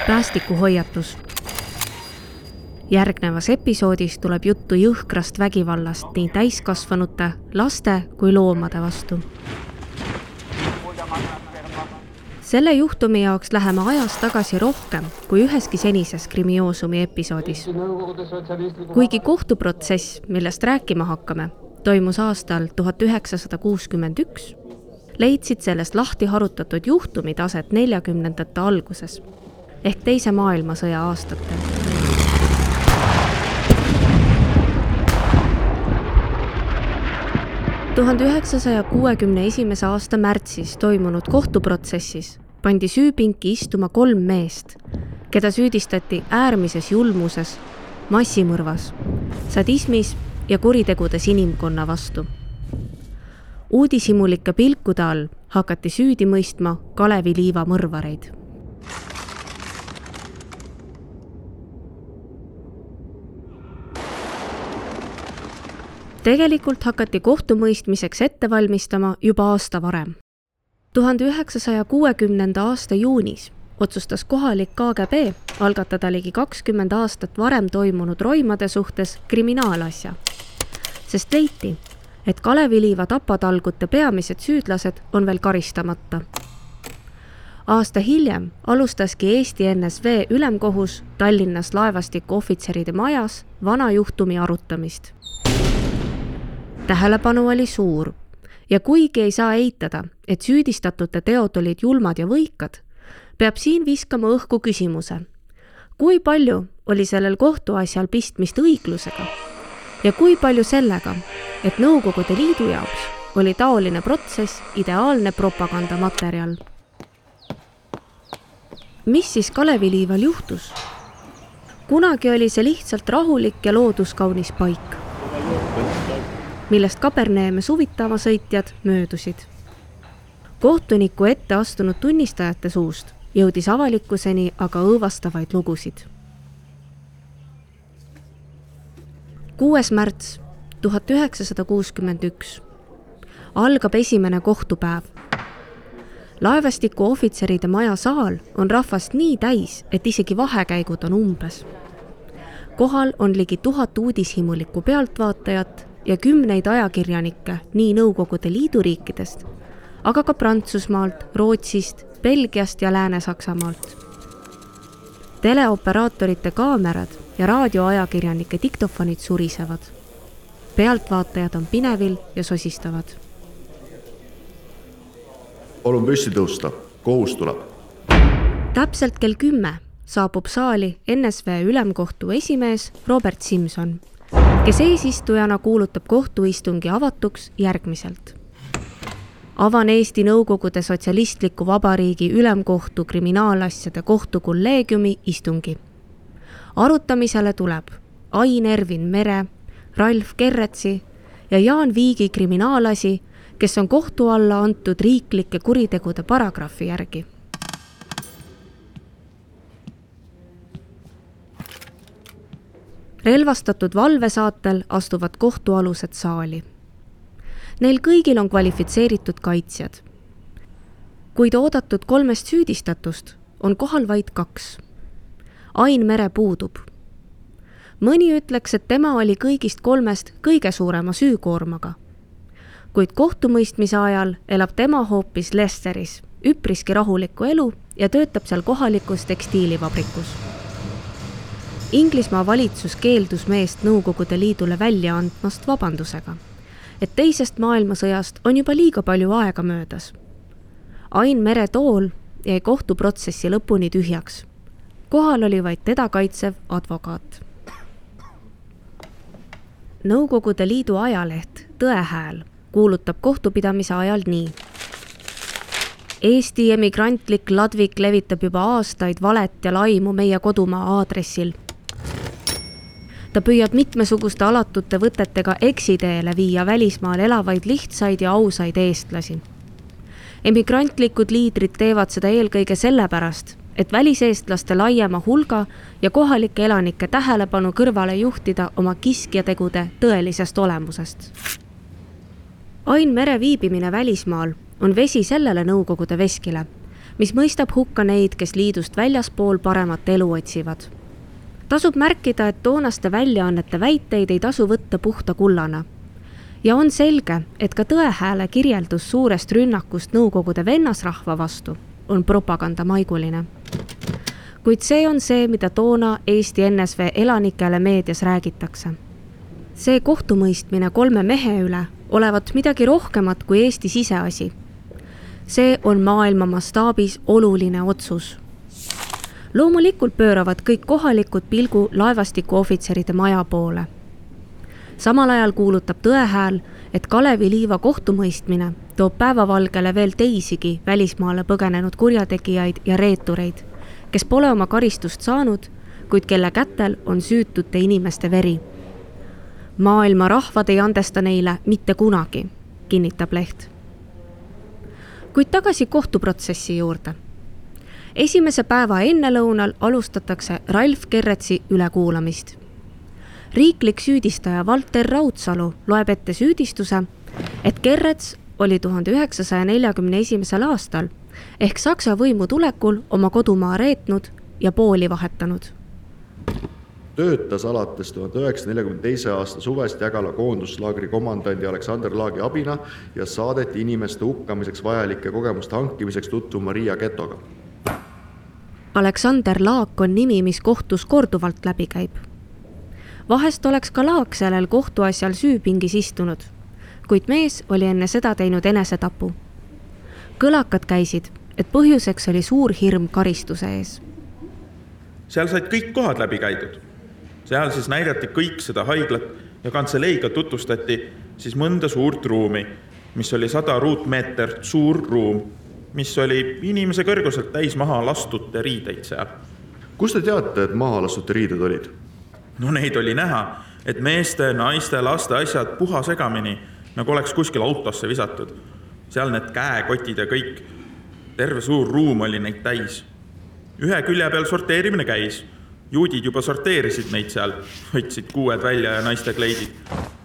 Päästikuhoiatus. Järgnevas episoodis tuleb juttu jõhkrast vägivallast nii täiskasvanute, laste kui loomade vastu. Selle juhtumi jaoks läheme ajas tagasi rohkem kui üheski senises Krimioosumi episoodis. Kuigi kohtuprotsess, millest rääkima hakkame, toimus aastal 1961, leidsid sellest lahti harutatud juhtumid aset 40ndate alguses ehk Teise maailmasõja aastatel. – 1961. aasta märtsis toimunud kohtuprotsessis pandi süüpinki istuma 3 meest, keda süüdistati äärmises julmuses, massimõrvas, sadismis ja kuritegudes inimkonna vastu. Uudishimulike pilkude all hakati süüdi mõistma Kalevi Liiva mõrvareid. Tegelikult hakati kohtumõistmiseks ette valmistama juba aasta varem. 1960. aasta juunis otsustas kohalik KGB algatada ligi 20 aastat varem toimunud roimade suhtes kriminaalasja, sest leiti, et Kalevi Liiva tapatalgute peamised süüdlased on veel karistamata. Aasta hiljem alustaski Eesti NSV ülemkohus Tallinnas laevastiku ohvitseride majas vana juhtumi arutamist. Tähelepanu oli suur ja kuigi ei saa eitada, et süüdistatute teod olid julmad ja võikad, peab siin viskama õhku küsimuse, kui palju oli sellel kohtuasjal pistmist õiglusega ja kui palju sellega, et Nõukogude Liidu jaoks oli taoline protsess ideaalne propagandamaterjal. Mis siis Kalevi Liival juhtus? Kunagi oli see lihtsalt rahulik ja looduskaunis paik, millest Kaberneeme suvitama sõitjad möödusid. Kohtuniku ette astunud tunnistajate suust jõudis avalikkuseni aga õõvastavaid lugusid. 6. märts 1961 algab esimene kohtupäev. Laevastiku ohvitseride maja saal on rahvast nii täis, et isegi vahekäigud on umbes. Kohal on ligi 1000 uudishimulikku pealtvaatajat ja 10 ajakirjanikke nii Nõukogude Liidu riikidest, aga ka Prantsusmaalt, Rootsist, Belgiast ja Lääne-Saksamaalt. Teleoperaatorite kaamerad ja raadioajakirjanike diktofonid surisevad. Pealtvaatajad on pinevil ja sosistavad. Palun püsti tõusta, kohus tuleb. Täpselt kell 10 saabub saali NSV ülemkohtu esimees Robert Simson, kes eesistujana kuulutab kohtuistungi avatuks järgmiselt. Avan Eesti Nõukogude Sotsialistliku Vabariigi Ülemkohtu kriminaalasjade kohtukolleegiumi istungi. Arutamisele tuleb Ain Ervin Mere, Ralf Kerretsi ja Jaan Viigi kriminaalasi, kes on kohtu alla antud riiklike kuritegude paragrahvi järgi. Relvastatud valvesaatel astuvad kohtualused saali. Neil kõigil on kvalifitseeritud kaitsjad. Kuid oodatud 3 süüdistatust on kohal vaid 2. Ain Mere puudub. Mõni ütleks, et tema oli kõigist 3 kõige suurema süükoormaga. Kuid kohtumõistmise ajal elab tema hoopis Lesteris, üpriski rahulikku elu ja töötab seal kohalikus tekstiilivabrikus. Inglismaa valitsus keeldus meest Nõukogude Liidule välja andmast vabandusega, et Teisest maailmasõjast on juba liiga palju aega möödas. Ain Mere tool jäi kohtuprotsessi lõpuni tühjaks. Kohal oli vaid teda kaitsev advokaat. Nõukogude Liidu ajaleht Tõehääl kuulutab kohtupidamise ajal nii. Eesti emigrantlik ladvik levitab juba aastaid valet ja laimu meie kodumaa aadressil. Ta püüab mitmesuguste alatute võtetega eksiteele viia välismaal elavaid lihtsaid ja ausaid eestlasi. Emigrantlikud liidrid teevad seda eelkõige sellepärast, et väliseestlaste laiema hulga ja kohalike elanike tähelepanu kõrvale juhtida oma kiskjategude tõelisest olemusest. Ain Mere viibimine välismaal on vesi sellele Nõukogude veskile, mis mõistab hukka neid, kes liidust väljaspool paremat elu otsivad. Tasub märkida, et toonaste väljaannete väiteid ei tasu võtta puhta kullana. Ja on selge, et ka Tõehääle kirjeldus suurest rünnakust Nõukogude vennasrahva vastu on propagandamaiguline. Kuid see on see, mida toona Eesti NSV elanikele meedias räägitakse. See kohtumõistmine 3 mehe üle olevat midagi rohkemat kui Eesti siseasi. See on maailma mastaabis oluline otsus. Loomulikult pööravad kõik kohalikud pilgu laevastiku ohvitseride maja poole. Samal ajal kuulutab Tõehääl, et Kalevi Liiva kohtumõistmine toob päevavalgele veel teisigi välismaale põgenenud kurjategijaid ja reetureid, kes pole oma karistust saanud, kuid kelle kätel on süütute inimeste veri. Maailma rahvad ei andesta neile mitte kunagi, kinnitab leht. Kuid tagasi kohtuprotsessi juurde. Esimese päeva ennelõunal alustatakse Ralf Kerretsi ülekuulamist. Riiklik süüdistaja Valter Raudsalu loeb ette süüdistuse, et Kerrets oli 1941. aastal ehk Saksa võimu tulekul oma kodumaa reetnud ja pooli vahetanud. Töötas alates 1942. aasta suvest Jägala koonduslaagri komandandi Aleksander Laagi abina ja saadeti inimeste hukkamiseks vajalike kogemuste hankimiseks tutvuma Riia getoga. Aleksander Laak on nimi, mis kohtus korduvalt läbi käib. Vahest oleks ka Laak sellel kohtuasjal süüpingis istunud, kuid mees oli enne seda teinud enesetapu. Kõlakad käisid, et põhjuseks oli suur hirm karistuse ees. Seal said kõik kohad läbi käidud. Seal siis näidati kõik seda haiglat ja kantseleiga tutvustati siis mõnda suurt ruumi, mis oli 100 ruutmeetert suur ruum, mis oli inimese kõrguselt täis maha lastute riideid seal. Kus te teate, et maha lastute riided olid? No neid oli näha, et meeste, naiste, laste asjad puha segamini, nagu oleks kuskil autosse visatud. Seal need käekotid ja kõik. Terve suur ruum oli neid täis. Ühe külje peal sorteerimine käis. Juudid juba sorteerisid neid seal, võtsid kuued välja ja naiste kleidid.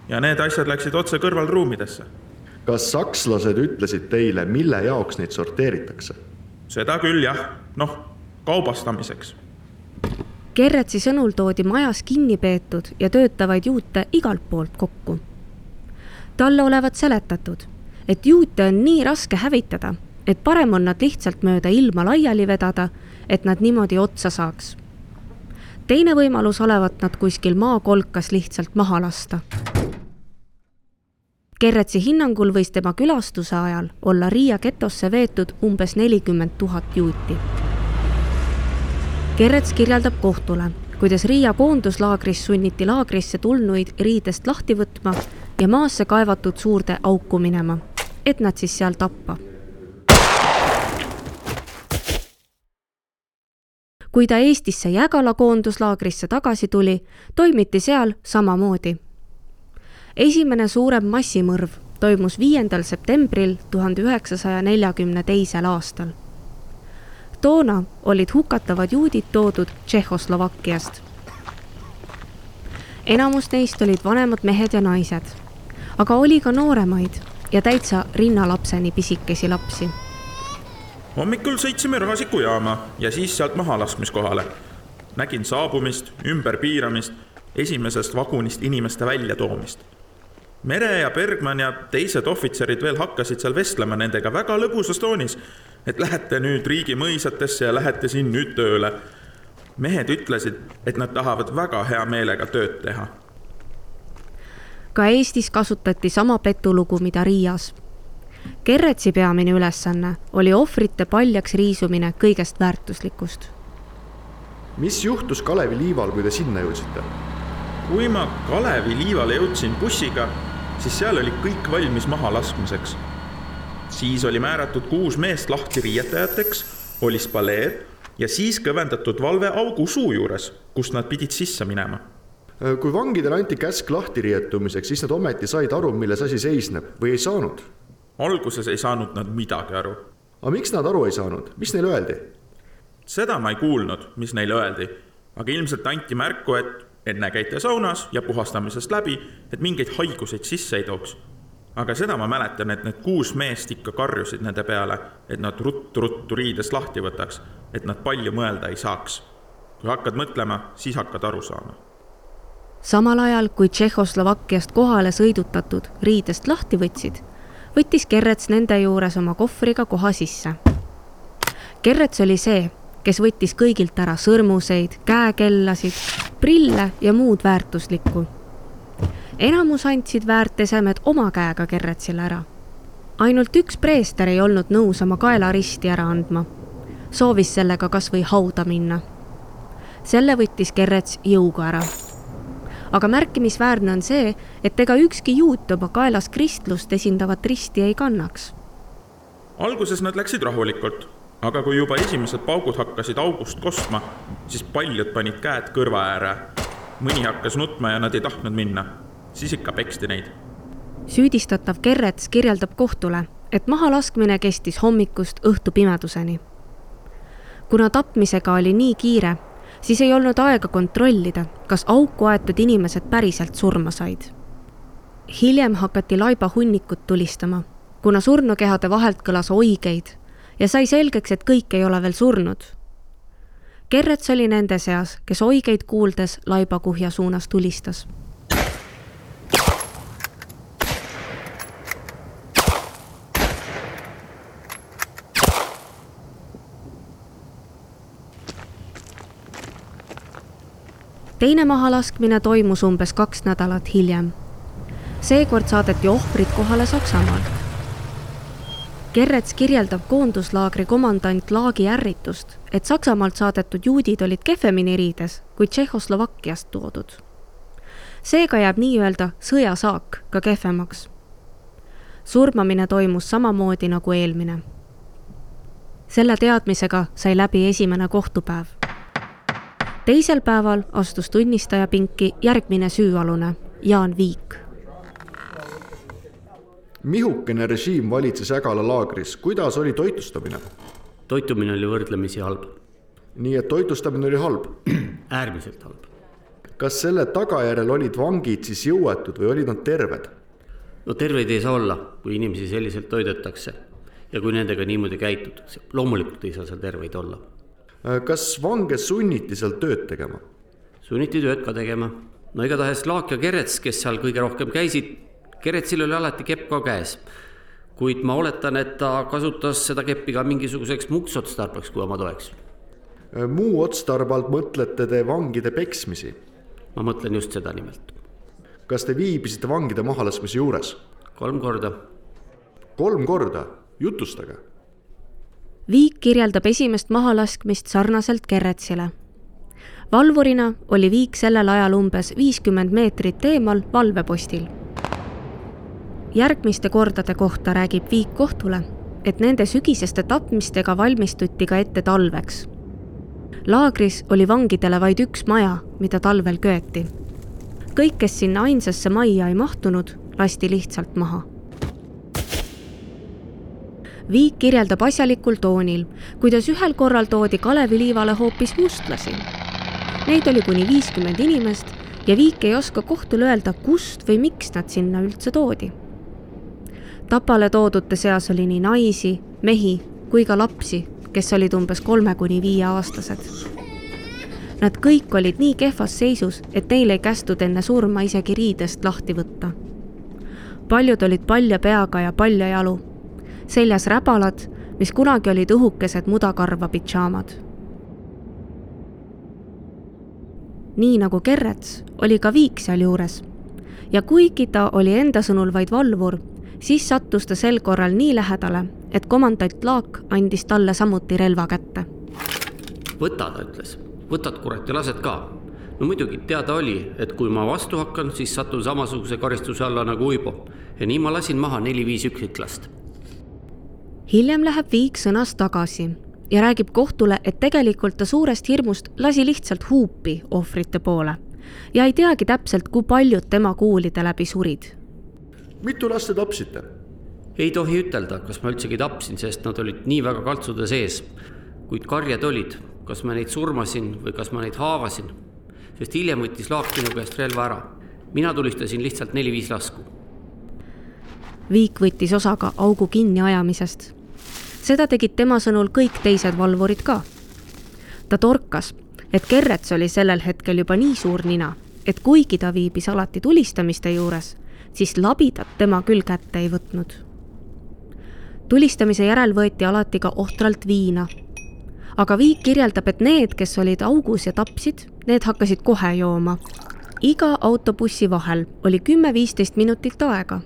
Ja need asjad läksid otse kõrvalruumidesse. Kas sakslased ütlesid teile, mille jaoks neid sorteeritakse? Seda küll jah, kaubastamiseks. Kerretsi sõnul toodi majas kinni peetud ja töötavaid juute igalt poolt kokku. Talle olevat seletatud, et juute on nii raske hävitada, et parem on nad lihtsalt mööda ilma laiali vedada, et nad niimoodi otsa saaks. Teine võimalus olevat nad kuskil maakolkas lihtsalt maha lasta. Kerretsi hinnangul võis tema külastuse ajal olla Riia getosse veetud umbes 40 000 juuti. Kerrets kirjeldab kohtule, kuidas Riia koonduslaagris sunniti laagrisse tulnuid riidest lahti võtma ja maasse kaevatud suurde auku minema, et nad siis seal tappa. Kui ta Eestisse Jägala koonduslaagrisse tagasi tuli, toimiti seal samamoodi. Esimene suurem massimõrv toimus 5. septembril 1942. aastal. Toona olid hukatavad juudid toodud Tšehhoslovakkiast. Enamus neist olid vanemad mehed ja naised, aga oli ka nooremaid ja täitsa rinnalapseni pisikesi lapsi. Hommikul sõitsime Rahasiku jaama ja siis sealt mahalaskmiskohale. Nägin saabumist, ümberpiiramist, esimesest vagunist inimeste väljatoomist. Mere ja Bergman ja teised ohvitserid veel hakkasid seal vestlema nendega väga lõbusas toonis, et lähete nüüd riigi mõisatesse ja lähete siin nüüd tööle. Mehed ütlesid, et nad tahavad väga hea meelega tööd teha. Ka Eestis kasutati sama petulugu, mida Riias. Kerretsi peamine ülesanne oli ohvrite paljaks riisumine kõigest väärtuslikust. Mis juhtus Kalevi Liival, kui te sinna jõudsite? Kui ma Kalevi Liivale jõudsin bussiga, siis seal oli kõik valmis maha laskmiseks. Siis oli määratud 6 meest lahti riietajateks, oli spaleer ja siis kõvendatud valve augu suu juures, kust nad pidid sisse minema. Kui vangidele anti käsk lahti rietumiseks, siis nad ometi said aru, milles asi seisneb või ei saanud? Alguses ei saanud nad midagi aru. Aga miks nad aru ei saanud? Mis neile öeldi? Seda ma ei kuulnud, mis neile öeldi, aga ilmselt anti märku, et enne käite saunas ja puhastamisest läbi, et mingeid haiguseid sisse ei tooks. Aga seda ma mäletan, et need 6 meest ikka karjusid nende peale, et nad ruttu riidest lahti võtaks, et nad palju mõelda ei saaks. Kui hakkad mõtlema, siis hakkad aru saama. Samal ajal, kui Tšehhoslovakkiast kohale sõidutatud riidest lahti võttis Kerrets nende juures oma kohvriga koha sisse. Kerrets oli see, kes võttis kõigilt ära sõrmuseid, käekellasid, prille ja muud väärtuslikku. Enamus andsid väärtesemed oma käega Kerretsile ära. Ainult üks preester ei olnud nõus oma kaelaristi ära andma. Soovis sellega kas või hauda minna. Selle võttis Kerrets jõuga ära. Aga märkimisväärne on see, et ega ükski juut oma kaelas kristlust esindavat risti ei kannaks. Alguses nad läksid rahulikult, aga kui juba esimesed paugud hakkasid august kostma, siis paljud panid käed kõrva ääre. Mõni hakkas nutma ja nad ei tahtnud minna. Siis ikka peksti neid. Süüdistatav Kerrets kirjeldab kohtule, et mahalaskmine kestis hommikust õhtu pimeduseni. Kuna tapmisega oli nii kiire, siis ei olnud aega kontrollida, kas auku aetud inimesed päriselt surma said. Hiljem hakati laiba hunnikut tulistama, kuna surnukehade vahelt kõlas oigeid ja sai selgeks, et kõik ei ole veel surnud. Kerrets oli nende seas, kes oigeid kuuldes laibakuhja suunas tulistas. Teine mahalaskmine toimus umbes 2 nädalat hiljem. Seekord saadeti ohvrid kohale Saksamaalt. Kerrets kirjeldab koonduslaagri komandant Laagi ärritust, et Saksamaalt saadetud juudid olid kehvemini riides kui Tšehhoslovakkiast toodud. Seega jääb nii-öelda sõjasaak ka kehvemaks. Surmamine toimus samamoodi nagu eelmine. Selle teadmisega sai läbi esimene kohtupäev. Teisel päeval astus tunnistaja pinki järgmine süüalune, Jaan Viik. Mihukene režiim valitses Jägala laagris. Kuidas oli toitlustamine? Toitumine oli võrdlemisi halb. Nii et toitlustamine oli halb? Äärmiselt halb. Kas selle tagajärjel olid vangid siis jõuetud või olid nad terved? No terveid ei saa olla, kui inimesi selliselt toidetakse ja kui nendega niimoodi käitutakse. Loomulikult ei saa seal terveid olla. Kas vange sunniti seal tööd tegema? Sunniti tööd ka tegema. No igatahes Laak ja Kerrets, kes seal kõige rohkem käisid, Kerretsil oli alati kepp ka käes. Kuid ma oletan, et ta kasutas seda keppi ka mingisuguseks muuks otstarbeks, kui oma toeks. Muu otstarbalt mõtlete te vangide peksmisi? Ma mõtlen just seda nimelt. Kas te viibisite vangide mahalaskmise juures? 3 korda. 3 korda? Jutustage. Viik kirjeldab esimest mahalaskmist sarnaselt Kerretsile. Valvurina oli Viik sellel ajal umbes 50 meetrit eemal valvepostil. Järgmiste kordade kohta räägib Viik kohtule, et nende sügiseste tapmistega valmistuti ka ette talveks. Laagris oli vangidele vaid üks maja, mida talvel köeti. Kõik, kes sinna ainsasse majja ei mahtunud, lasti lihtsalt maha. Viik kirjeldab asjalikul toonil, kuidas ühel korral toodi Kaleviliivale hoopis mustlasi. Neid oli kuni 50 inimest ja Viik ei oska kohtule öelda, kust või miks nad sinna üldse toodi. Tapale toodute seas oli nii naisi, mehi kui ka lapsi, kes olid umbes 3–5 aastased. Nad kõik olid nii kehvas seisus, et neil ei kästud enne surma isegi riidest lahti võtta. Paljud olid palja peaga ja palja jalu. Seljas räbalad, mis kunagi olid õhukesed mudakarva pitšaamad. Nii nagu Kerrets oli ka Viik seal juures. Ja kuigi ta oli enda sõnul vaid valvur, siis sattus ta sel korral nii lähedale, et komandant Laak andis talle samuti relva kätte. Võta, ta ütles. Võtad kurat ja lased ka. No muidugi teada oli, et kui ma vastu hakkan, siis satun samasuguse karistuse alla nagu Uibo. Ja nii ma lasin maha 4-5 üksiklast. Hiljem läheb Viik sõnast tagasi ja räägib kohtule, et tegelikult ta suurest hirmust lasi lihtsalt huupi ohvrite poole ja ei teagi täpselt, kui paljud tema kuulide läbi surid. Mitu last te tapsite? Ei tohi ütelda, kas ma üldsegi tapsin, sest nad olid nii väga kaltsude sees. Kuid karjad olid, kas ma neid surmasin või kas ma neid haavasin, sest hiljem võttis Laak minu käest relva ära. Mina tulistasin lihtsalt 4-5 lasku. Viik võttis osa ka augu kinni ajamisest. Seda tegid tema sõnul kõik teised valvurid ka. Ta torkas, et Kerrets oli sellel hetkel juba nii suur nina, et kuigi ta viibis alati tulistamiste juures, siis labidat tema küll kätte ei võtnud. Tulistamise järel võeti alati ka ohtralt viina. Aga Viik kirjeldab, et need, kes olid augus ja tapsid, need hakkasid kohe jooma. Iga autobussi vahel oli 10-15 minutit aega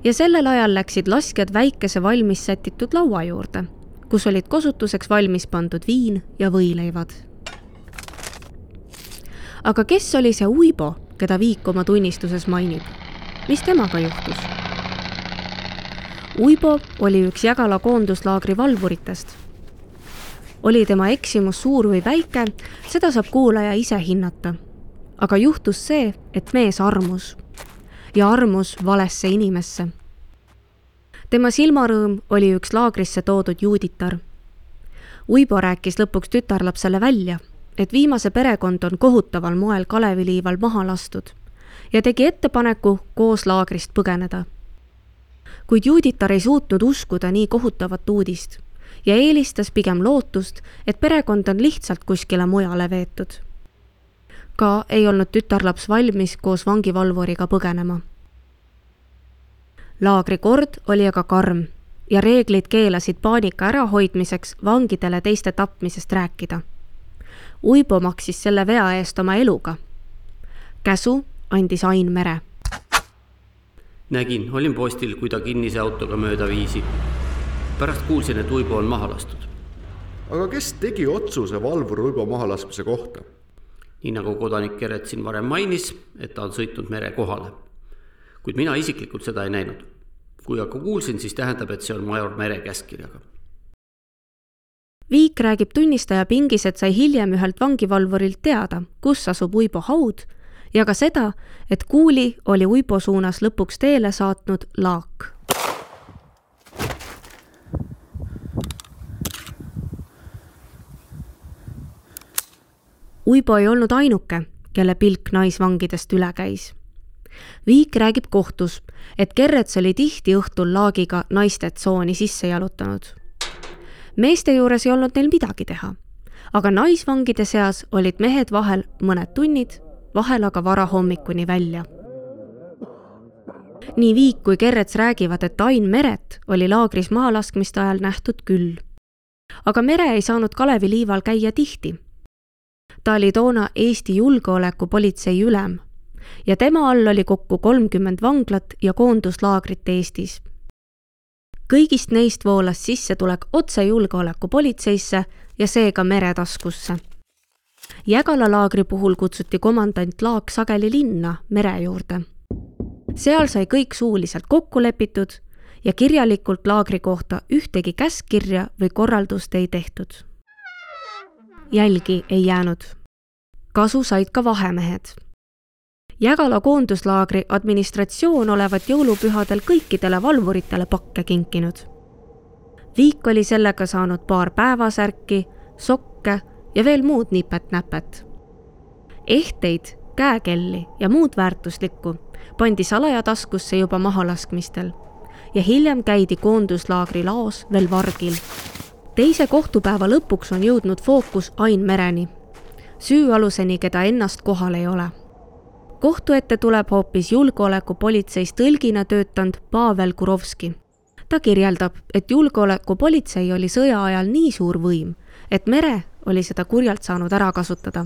ja sellel ajal läksid laskjad väikese valmis sätitud laua juurde, kus olid kosutuseks valmis pandud viin ja võileivad. Aga kes oli see Uibo, keda Viik oma tunnistuses mainib? Mis temaga juhtus? Uibo oli üks Jägala koonduslaagri valvuritest. Oli tema eksimus suur või väike, seda saab kuulaja ise hinnata. Aga juhtus see, et mees armus. Ja armus valesse inimesse. Tema silmarõõm oli üks laagrisse toodud juuditar. Uibo rääkis lõpuks tütarlapsele välja, et viimase perekond on kohutaval moel Kaleviliival maha lastud ja tegi ettepaneku koos laagrist põgeneda. Kuid juuditar ei suutnud uskuda nii kohutavat uudist ja eelistas pigem lootust, et perekond on lihtsalt kuskile mujale veetud. Ka ei olnud tütarlaps valmis koos vangivalvuriga põgenema. Laagri kord oli aga karm ja reeglid keelasid paanika ärahoidmiseks vangidele teiste tapmisest rääkida. Uibo maksis selle vea eest oma eluga. Käsu andis Ain Mere. Nägin, olin postil, kui ta kinnise autoga mööda viisi. Pärast kuulsin, et Uibo on maha lastud. Aga kes tegi otsuse valvur Uibo mahalaskmise kohta? Nii nagu kodanik Kerrets siin varem mainis, et ta on sõitnud mere kohale. Kuid mina isiklikult seda ei näinud. Kui aga kuulsin, siis tähendab, et see on major Mere käskirjaga. Viik räägib tunnistaja pingis, et sai hiljem ühelt vangivalvurilt teada, kus asub Uibo haud ja ka seda, et kuuli oli Uibo suunas lõpuks teele saatnud laak. Uibo ei olnud ainuke, kelle pilk naisvangidest üle käis. Viik räägib kohtus, et Kerrets oli tihti õhtul laagiga naiste tsooni sisse jalutanud. Meeste juures ei olnud neil midagi teha, aga naisvangide seas olid mehed vahel mõned tunnid, vahel aga vara hommikuni välja. Nii Viik kui Kerrets räägivad, et Ain Meret oli laagris mahalaskmiste ajal nähtud küll. Aga Mere ei saanud Kaleviliival käia tihti. Ta oli toona Eesti julgeolekupolitsei ülem ja tema all oli kokku 30 vanglat ja koonduslaagrit Eestis. Kõigist neist voolas sissetulek otse julgeolekupolitseisse ja seega Mere taskusse. Jägala laagri puhul kutsuti komandant Laak sageli linna Mere juurde. Seal sai kõik suuliselt kokku lepitud ja kirjalikult laagri kohta ühtegi käskkirja või korraldust ei tehtud. Jälgi ei jäänud. Kasu said ka vahemehed. Jägala koonduslaagri administratsioon olevat jõulupühadel kõikidele valvuritele pakke kinkinud. Viik oli sellega saanud paar päevasärki, sokke ja veel muud nipet-näpet. Ehteid, käekelli ja muud väärtuslikku pandi salaja taskusse juba mahalaskmistel ja hiljem käidi koonduslaagri laos veel vargil. Teise kohtupäeva lõpuks on jõudnud fookus Ain Mereni, süüaluseni, keda ennast kohal ei ole. Kohtu ette tuleb hoopis julgeolekupolitseis tõlgina töötanud Pavel Kurovski. Ta kirjeldab, et julgeolekupolitsei oli sõja ajal nii suur võim, et Mere oli seda kurjalt saanud ära kasutada.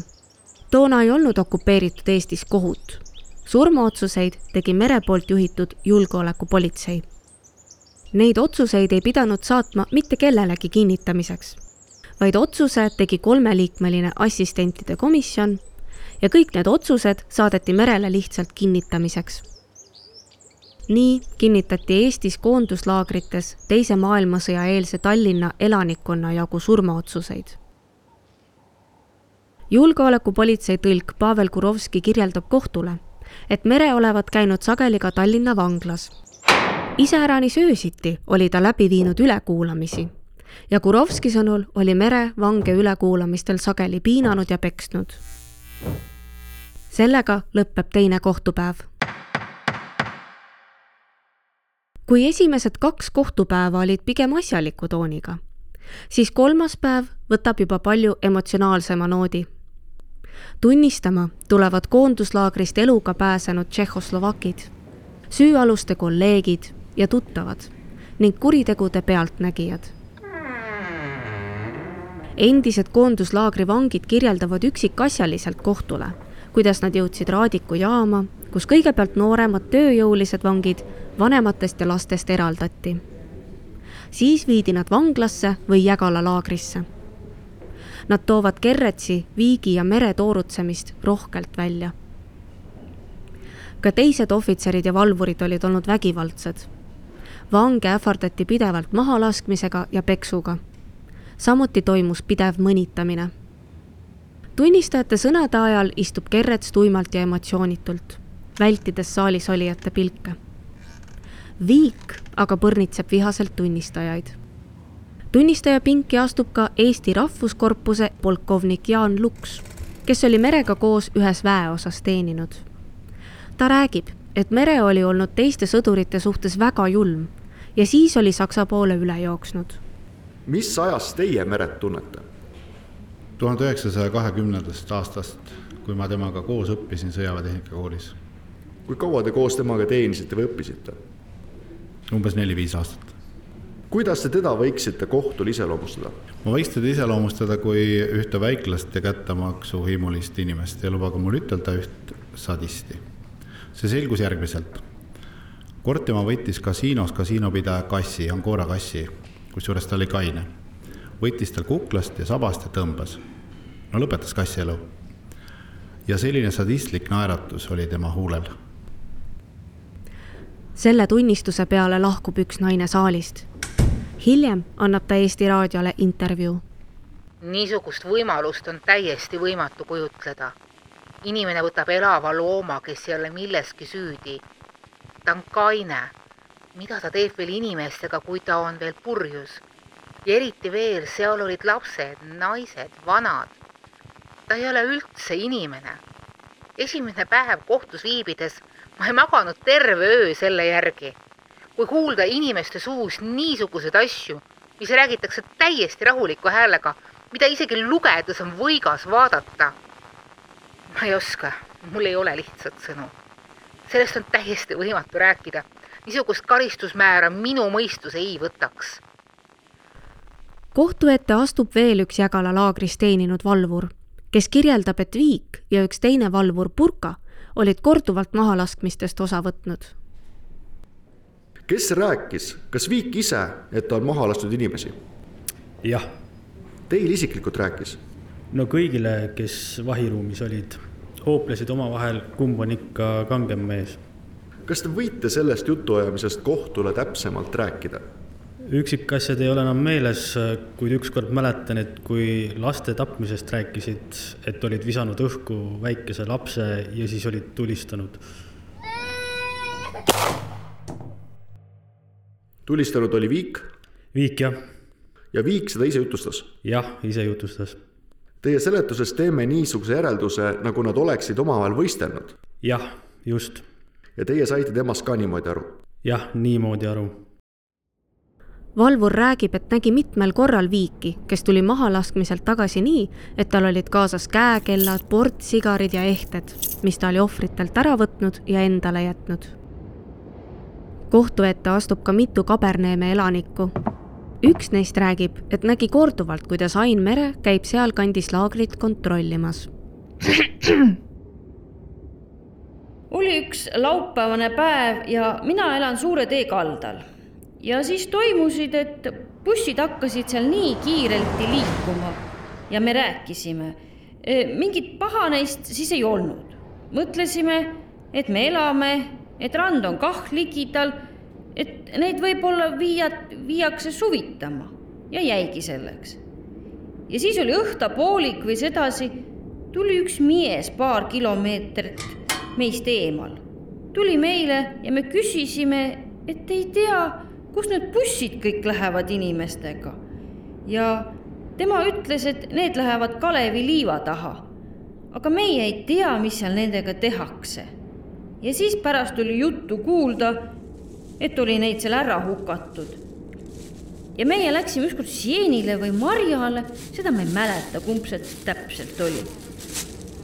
Toona ei olnud okupeeritud Eestis kohut. Surmaotsuseid tegi Mere poolt juhitud julgeolekupolitsei. Neid otsuseid ei pidanud saatma mitte kellelegi kinnitamiseks, vaid otsuse tegi 3-liikmeline assistentide komisjon ja kõik need otsused saadeti Merele lihtsalt kinnitamiseks. Nii kinnitati Eestis koonduslaagrites Teise maailmasõja eelse Tallinna elanikkonna jagu surmaotsuseid. Julgeolekupolitsei tõlk Pavel Kurovski kirjeldab kohtule, et Mere olevat käinud sageli ka Tallinna vanglas. Iseäranis öösiti oli ta läbi viinud ülekuulamisi ja Kurovski sõnul oli Mere vange ülekuulamistel sageli piinanud ja peksnud. Sellega lõpeb teine kohtupäev. Kui esimesed 2 kohtupäeva olid pigem asjaliku tooniga, siis 3. päev võtab juba palju emotsionaalsema noodi. Tunnistama tulevad koonduslaagrist eluga pääsenud tšehhoslovakid, süüaluste kolleegid ja tuttavad ning kuritegude pealtnägijad. Endised koonduslaagri vangid kirjeldavad üksikasjaliselt kohtule, kuidas nad jõudsid Raadiku jaama, kus kõigepealt nooremad tööjõulised vangid vanematest ja lastest eraldati. Siis viidi nad vanglasse või Jägala laagrisse. Nad toovad Kerretsi, Viigi ja Mere toorutsemist rohkelt välja. Ka teised ohvitserid ja valvurid olid olnud vägivaldsed. Vange ähvardati pidevalt mahalaskmisega ja peksuga. Samuti toimus pidev mõnitamine. Tunnistajate sõnade ajal istub Kerrets tuimalt ja emotsioonitult, vältides saalis olijate pilke. Viik aga põrnitseb vihaselt tunnistajaid. Tunnistaja pinki astub ka Eesti Rahvuskorpuse polkovnik Jaan Luks, kes oli Merega koos ühes väeosas teeninud. Ta räägib, et Mere oli olnud teiste sõdurite suhtes väga julm ja siis oli Saksa poole üle jooksnud. Mis ajast teie Meret tunnete? 1920. aastast, kui ma temaga koos õppisin sõjaväetehnika koolis. Kui kaua te koos temaga teenisite või õppisite? Umbes 4-5 aastat. Kuidas te teda võiksite kohtul iseloomustada? Ma võiks teda iseloomustada kui ühte väiklast ja kättamaksu hiimulist inimest ja lubage mul ütelda üht sadisti. See selgus järgmiselt. Kord tema võttis kasiinos kasiinopidaja kassi, Angora kassi, kusjuures ta oli kaine. Võttis tal kuklast ja sabast ja tõmbas. No lõpetas kassi elu. Ja selline sadistlik naeratus oli tema huulel. Selle tunnistuse peale lahkub üks naine saalist. Hiljem annab ta Eesti Raadiole intervjuu. Niisugust võimalust on täiesti võimatu kujutleda. Inimene võtab elava looma, kes ei ole milleski süüdi. Ta on kaine. Mida ta teeb veel inimestega, kui ta on veel purjus? Ja eriti veel, seal olid lapsed, naised, vanad. Ta ei ole üldse inimene. Esimene päev kohtus viibides ma ei maganud terve öö selle järgi. Kui kuulda inimeste suus niisuguseid asju, mis räägitakse täiesti rahuliku häälega, mida isegi lugedes on võigas vaadata. Ma ei oska, mul ei ole lihtsalt sõnu. Sellest on täiesti võimatu rääkida. Niisugust karistusmäära minu mõistus ei võtaks. Kohtu ette astub veel üks Jägala laagris teeninud valvur, kes kirjeldab, et Viik ja üks teine valvur Purka olid korduvalt mahalaskmistest osa võtnud. Kes rääkis? Kas Viik ise, et ta on maha lastud inimesi? Jah. Teil isiklikult rääkis? No kõigile, kes vahiruumis olid, hooplesid omavahel, kumb on ikka kangem mees. Kas te võite sellest jutuajamisest kohtule täpsemalt rääkida? Üksikasjad ei ole enam meeles, kuid ükskord mäletan, et kui laste tapmisest rääkisid, et olid visanud õhku väikese lapse ja siis olid tulistanud. Tulistanud oli Viik? Viik, jah. Ja Viik seda ise jutustas? Jah, ise jutustas. Teie seletuses teeme niisuguse järelduse, nagu nad oleksid omavahel võistelnud? Jah, just. Ja teie saite temast ka niimoodi aru? Jah, niimoodi aru. Valvur räägib, et nägi mitmel korral Viiki, kes tuli mahalaskmiselt tagasi nii, et tal olid kaasas käekellad, portsigarid ja ehted, mis ta oli ohvritelt ära võtnud ja endale jätnud. Kohtu ette astub ka mitu Kaberneeme elanikku. Üks neist räägib, et nägi korduvalt, kuidas Ain Mere käib seal kandis laagrit kontrollimas. Oli üks laupäevane päev ja mina elan Suure tee kaldal. Ja siis toimusid, et bussid hakkasid seal nii kiirelti liikuma ja me rääkisime. Mingit paha neist siis ei olnud. Mõtlesime, et me elame, et rand on kah ligidal, et neid võib-olla viiakse suvitama ja jäigi selleks. Ja siis oli õhtapoolik või sedasi, tuli üks mies paar kilomeetrit meist eemal. Tuli meile ja me küsisime, et ei tea, kus need bussid kõik lähevad inimestega. Ja tema ütles, et need lähevad Kalevi liiva taha. Aga meie ei tea, mis seal nendega tehakse. Ja siis pärast oli juttu kuulda, et oli neid seal ära hukatud. Ja meie läksime ükskord Sienile või Marjale, seda ma ei mäleta, kumb see täpselt oli.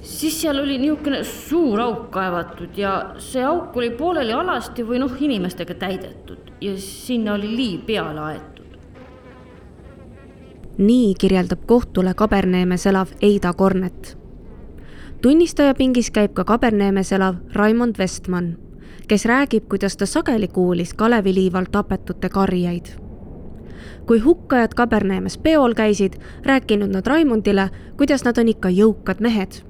Siis seal oli niisugune suur auk kaevatud ja see auk oli pooleli alasti või inimestega täidetud ja sinna oli liiv peale aetud. Nii kirjeldab kohtule Kaberneemes elav Eida Kornet. Tunnistaja pingis käib ka Kaberneemes elav Raimond Vestman, kes räägib, kuidas ta sageli kuulis Kaleviliival tapetute karjeid. Kui hukkajad Kaberneemes peol käisid, rääkinud nad Raimondile, kuidas nad on ikka jõukad mehed.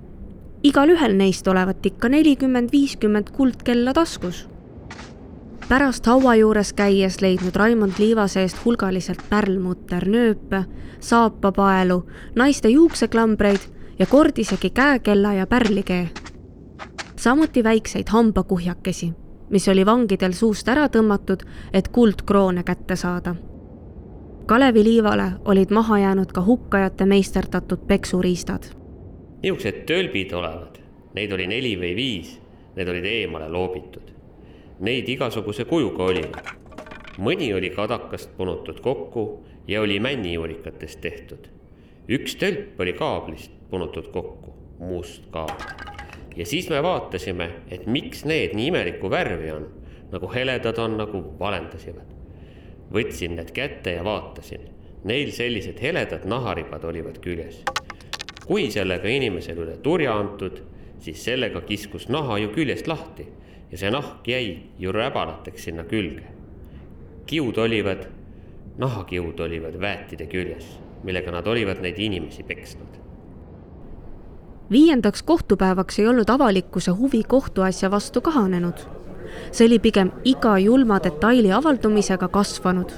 Igal ühel neist olevat ikka 40-50 kuldkella taskus. Pärast haua juures käies leidnud Raimond liiva seest hulgaliselt pärlmutter nööpe, saapapaelu, naiste juukseklambreid ja kord isegi käekella ja pärlikee. Samuti väikseid hambakuhjakesi, mis oli vangidel suust ära tõmmatud, et kuldkroone kätte saada. Kaleviliivale olid maha jäänud ka hukkajate meisterdatud peksuriistad. Niisugused tölbid olevad, neid oli 4 või 5, need olid eemale loobitud. Neid igasuguse kujuga olivad. Mõni oli kadakast punutud kokku ja oli männijuurikatest tehtud. Üks tölp oli kaablist punutud kokku, must kaabel. Ja siis me vaatasime, et miks need nii imelikku värvi on, nagu heledad on, nagu valendasivad. Võtsin need kätte ja vaatasin. Neil sellised heledad naharibad olivad küljes. Kui sellega inimesel üle turja antud, siis sellega kiskus naha ju küljest lahti ja see nahk jäi ju räbalateks sinna külge. Nahakiud olivad väetide küljes, millega nad olivad neid inimesi peksnud. 5. kohtupäevaks ei olnud avalikkuse huvi kohtuasja vastu kahanenud. See oli pigem iga julma detaili avaldumisega kasvanud.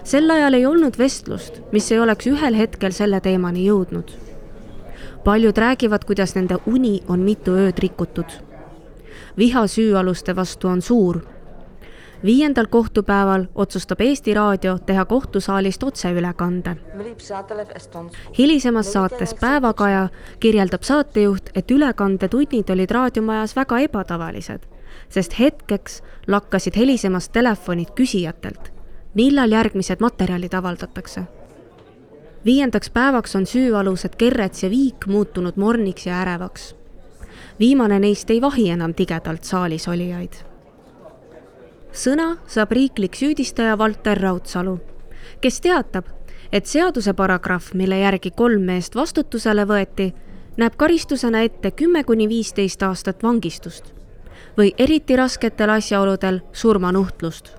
Sel ajal ei olnud vestlust, mis ei oleks ühel hetkel selle teemani jõudnud. Paljud räägivad, kuidas nende uni on mitu ööd rikutud. Viha süüaluste vastu on suur. 5. kohtupäeval otsustab Eesti Raadio teha kohtusaalist otseülekande. Hilisemas saates Päevakaja kirjeldab saatejuht, et ülekandetunnid olid raadiomajas väga ebatavalised, sest hetkeks lakkasid helisemast telefonid küsijatelt, millal järgmised materjalid avaldatakse. 5. päevaks on süüalused Kerrets ja Viik muutunud morniks ja ärevaks. Viimane neist ei vahi enam tigedalt saalis olijaid. Sõna saab riiklik süüdistaja Valter Raudsalu, kes teatab, et seaduse paragrahv, mille järgi 3 meest vastutusele võeti, näeb karistusena ette 10-15 aastat vangistust või eriti rasketel asjaoludel surmanuhtlust.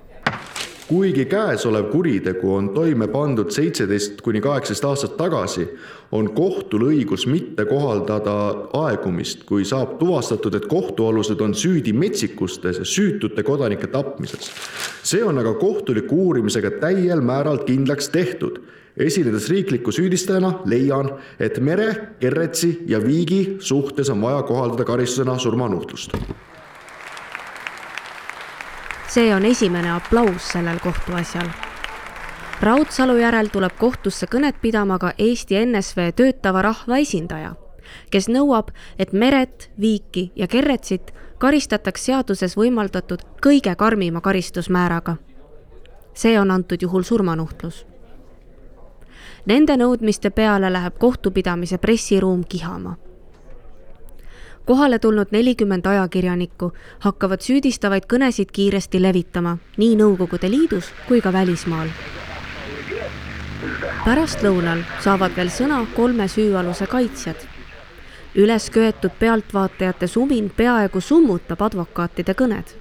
Kuigi käesolev kuritegu on toime pandud 17-18 aastat tagasi, on kohtul õigus mitte kohaldada aegumist, kui saab tuvastatud, et kohtualused on süüdi metsikustes ja süütute kodanike tapmises. See on aga kohtuliku uurimisega täiel määral kindlaks tehtud. Esinedes riikliku süüdistajana leian, et Mere, Kerretsi ja Viigi suhtes on vaja kohaldada karistusena surmanuhtlust. See on esimene aplaus sellel kohtuasjal. Raudsalu järel tuleb kohtusse kõnet pidama ka Eesti NSV töötava rahva esindaja, kes nõuab, et Meret, Viiki ja Kerretsit karistataks seaduses võimaldatud kõige karmima karistusmääraga. See on antud juhul surmanuhtlus. Nende nõudmiste peale läheb kohtupidamise pressiruum kihama. Kohale tulnud 40 ajakirjanikku hakkavad süüdistavaid kõnesid kiiresti levitama, nii Nõukogude Liidus kui ka välismaal. Pärast lõunal saavad veel sõna 3 süüaluse kaitsjad. Üles köetud pealtvaatajate sumin peaaegu summutab advokaatide kõned.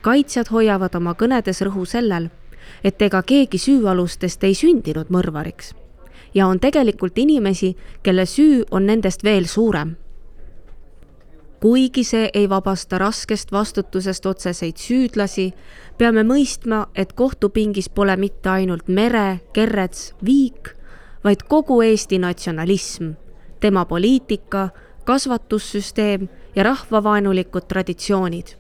Kaitsjad hoiavad oma kõnedes rõhu sellel, et ega keegi süüalustest ei sündinud mõrvariks ja on tegelikult inimesi, kelle süü on nendest veel suurem. Kuigi see ei vabasta raskest vastutusest otseseid süüdlasi, peame mõistma, et kohtupingis pole mitte ainult Mere, Kerrets, Viik, vaid kogu Eesti natsionalism, tema poliitika, kasvatussüsteem ja rahvavaenulikud traditsioonid.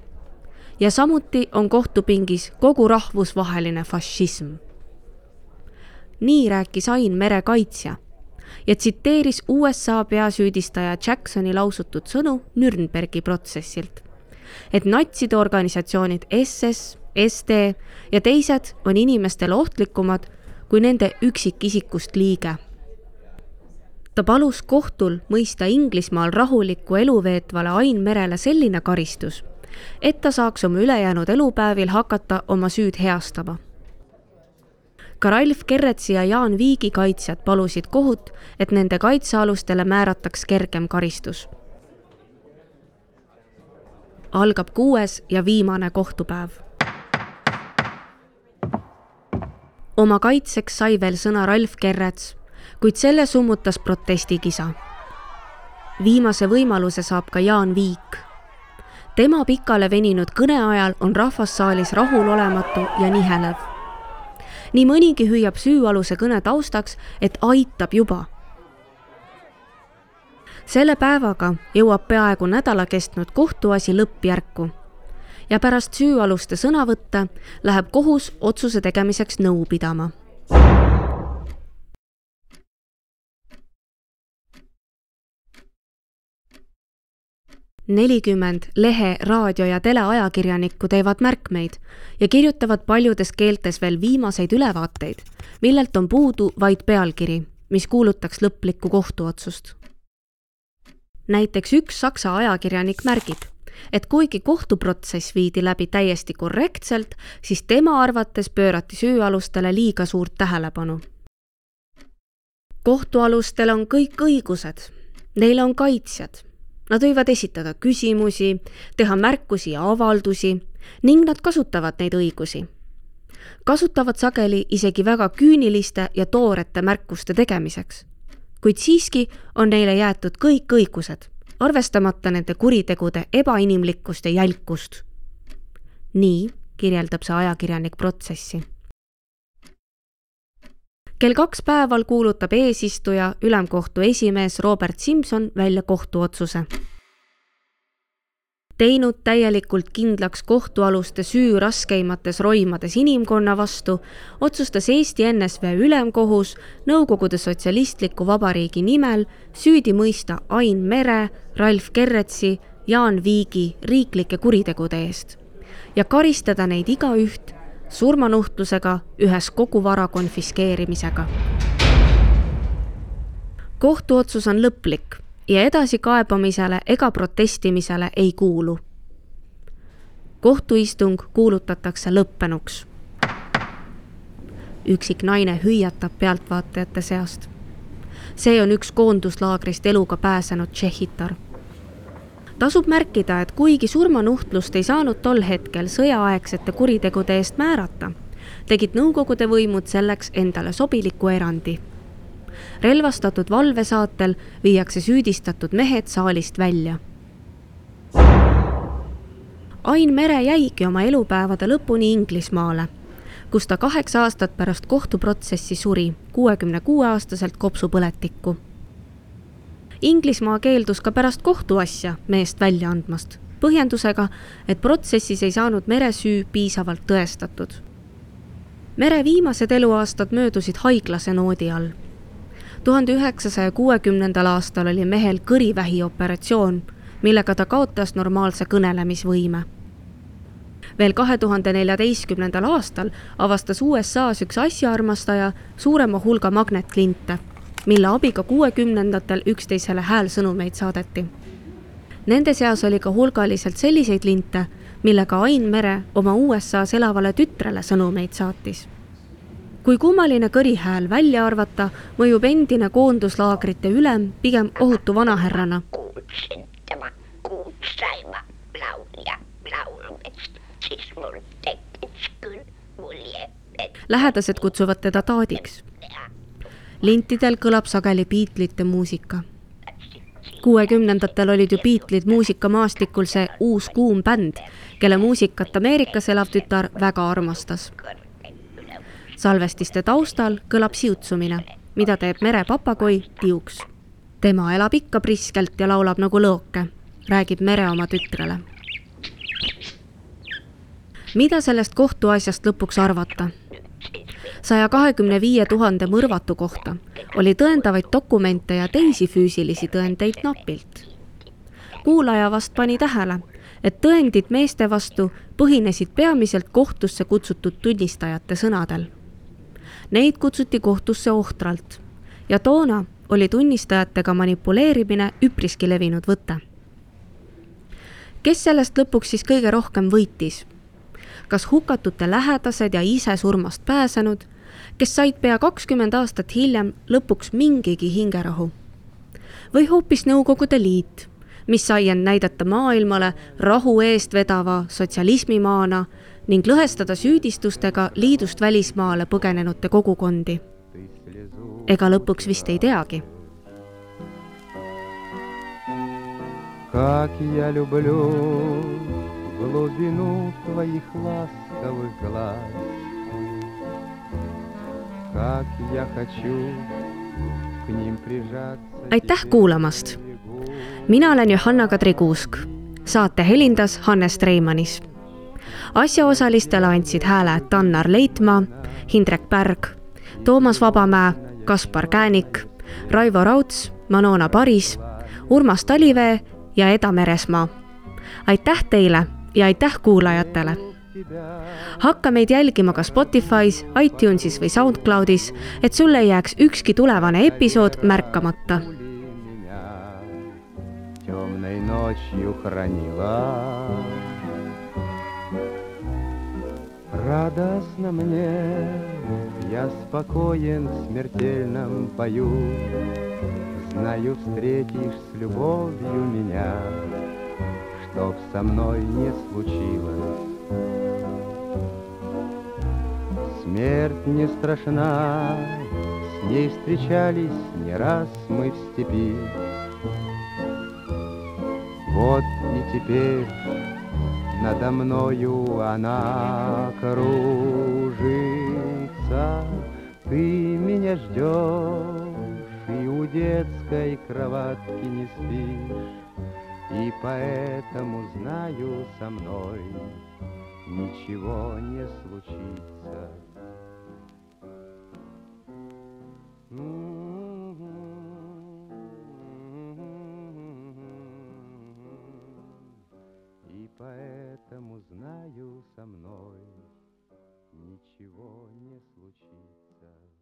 Ja samuti on kohtupingis kogu rahvusvaheline fašism. Nii rääkis Ain Mere kaitsja ja tsiteeris USA peasüüdistaja Jacksoni lausutud sõnu Nürnbergi protsessilt, et natside organisatsioonid SS, SD ja teised on inimestele ohtlikumad kui nende üksikisikust liige. Ta palus kohtul mõista Inglismaal rahulikku elu veetvale Ain Merele selline karistus, et ta saaks oma ülejäänud elupäevil hakata oma süüd heastama. Ka Ralf Kerretsi ja Jaan Viigi kaitsjad palusid kohut, et nende kaitsealustele määrataks kergem karistus. Algab 6. ja viimane kohtupäev. Oma kaitseks sai veel sõna Ralf Kerrets, kuid selle summutas protestikisa. Viimase võimaluse saab ka Jaan Viik. Tema pikale veninud kõne ajal on rahvassaalis rahulolematu ja nihelev. Nii mõnigi hüüab süüaluse kõne taustaks, et aitab juba. Selle päevaga jõuab peaaegu nädala kestnud kohtuasi lõppjärku ja pärast süüaluste sõnavõtte läheb kohus otsuse tegemiseks nõu pidama. Nelikümmend lehe, raadio ja teleajakirjanikku teevad märkmeid ja kirjutavad paljudes keeltes veel viimaseid ülevaateid, millelt on puudu vaid pealkiri, mis kuulutaks lõplikku kohtuotsust. Näiteks üks saksa ajakirjanik märgib, et kuigi kohtuprotsess viidi läbi täiesti korrektselt, siis tema arvates pöörati süüalustele liiga suurt tähelepanu. Kohtualustel on kõik õigused, neil on kaitsjad. Nad võivad esitada küsimusi, teha märkusi ja avaldusi ning nad kasutavad neid õigusi. Kasutavad sageli isegi väga küüniliste ja toorete märkuste tegemiseks, kuid siiski on neile jäetud kõik õigused, arvestamata nende kuritegude ebainimlikkust ja jälkust. Nii kirjeldab see ajakirjanik protsessi. Kell 2 päeval kuulutab eesistuja ülemkohtu esimees Robert Simson välja kohtuotsuse. Teinud täielikult kindlaks kohtualuste süü raskeimates roimades inimkonna vastu, otsustas Eesti NSV ülemkohus Nõukogude Sotsialistliku Vabariigi nimel süüdi mõista Ain Mere, Ralf Kerretsi, Jaan Viigi riiklike kuritegude eest ja karistada neid igaüht surmanuhtlusega ühes kogu vara konfiskeerimisega. Kohtuotsus on lõplik ja edasi kaebamisele ega protestimisele ei kuulu. Kohtuistung kuulutatakse lõppenuks. Üksik naine hüüatab pealtvaatajate seast. See on üks koonduslaagrist eluga pääsenud tšehhitar. Tasub märkida, et kuigi surmanuhtlust ei saanud tol hetkel sõjaaegsete kuritegude eest määrata, tegid nõukogude võimud selleks endale sobiliku erandi. Relvastatud valvesaatel viiakse süüdistatud mehed saalist välja. Ain Mere jäigi oma elupäevade lõpuni Inglismaale, kus ta 8 aastat pärast kohtuprotsessi suri 66-aastaselt kopsupõletikku. Inglismaa keeldus ka pärast kohtuasja meest välja andmast, põhjendusega, et protsessis ei saanud Mere süü piisavalt tõestatud. Mere viimased eluaastad möödusid haiglase noodi all. 1960. aastal oli mehel kõrivähi operatsioon, millega ta kaotas normaalse kõnelemisvõime. Veel 2014. aastal avastas USAs üks asjaarmastaja suurema hulga magnetlinte, mille abiga 60-ndatel üksteisele häälsõnumeid saadeti. Nende seas oli ka hulgaliselt selliseid linte, millega Ain Mere oma USAs elavale tütrele sõnumeid saatis. Kui kummaline kõrihääl välja arvata, mõjub endine koonduslaagrite ülem pigem ohutu vanahärrana. Kuulsaima laulja laulmist, siis mul tekkis küll mulje, et Lähedased kutsuvad teda taadiks. Lintidel kõlab sageli Beatlesite muusika. 60-ndatel olid ju Beatles muusikamaastikul see uus kuum bänd, kelle muusikat Ameerikas elav tütar väga armastas. Salvestiste taustal kõlab siutsumine, mida teeb Mere papagoi Tiuks. Tema elab ikka priskelt ja laulab nagu lõoke, räägib Mere oma tütrele. Mida sellest kohtuasjast lõpuks arvata? 125 000 mõrvatu kohta oli tõendavaid dokumente ja teisi füüsilisi tõendeid napilt. Kuulaja vast pani tähele, et tõendid meeste vastu põhinesid peamiselt kohtusse kutsutud tunnistajate sõnadel. Neid kutsuti kohtusse ohtralt ja toona oli tunnistajatega manipuleerimine üpriski levinud võte. Kes sellest lõpuks siis kõige rohkem võitis? Kas hukatute lähedased ja ise surmast pääsenud, kes said pea 20 aastat hiljem lõpuks mingigi hingerahu? Või hoopis Nõukogude Liit, mis sai end näidata maailmale rahu eest vedava sotsialismimaana ning lõhestada süüdistustega liidust välismaale põgenenute kogukondi? Ega lõpuks vist ei teagi. Как я люблю глубину твоих ласковых глаз, как я хочу к ним прижаться. Aitäh kuulamast! Mina olen Johanna-Kadri Kuusk. Saate helindas Hannes Treimanis. Asjaosalistele andsid hääle Tannar Leitmaa, Hindrek Pärg, Toomas Vabamäe, Kaspar Käänik, Raivo Rauts, Manona Paris, Urmas Talivee ja Eda Meresmaa. Aitäh teile ja aitäh kuulajatele! Hakka meid jälgima ka Spotify's, iTunesis või SoundCloudis, et sulle ei jääks ükski tulevane episood märkamata. Темной ночью хранила. Радостно мне, я спокоен в смертельном бою. Знаю, встретишь с любовью меня, чтоб со мной не случилось. Смерть не страшна, с ней встречались не раз мы в степи. Вот и теперь надо мною она кружится. Ты меня ждешь и у детской кроватки не спишь, и поэтому знаю, со мной ничего не случится. И поэтому знаю, со мной ничего не случится.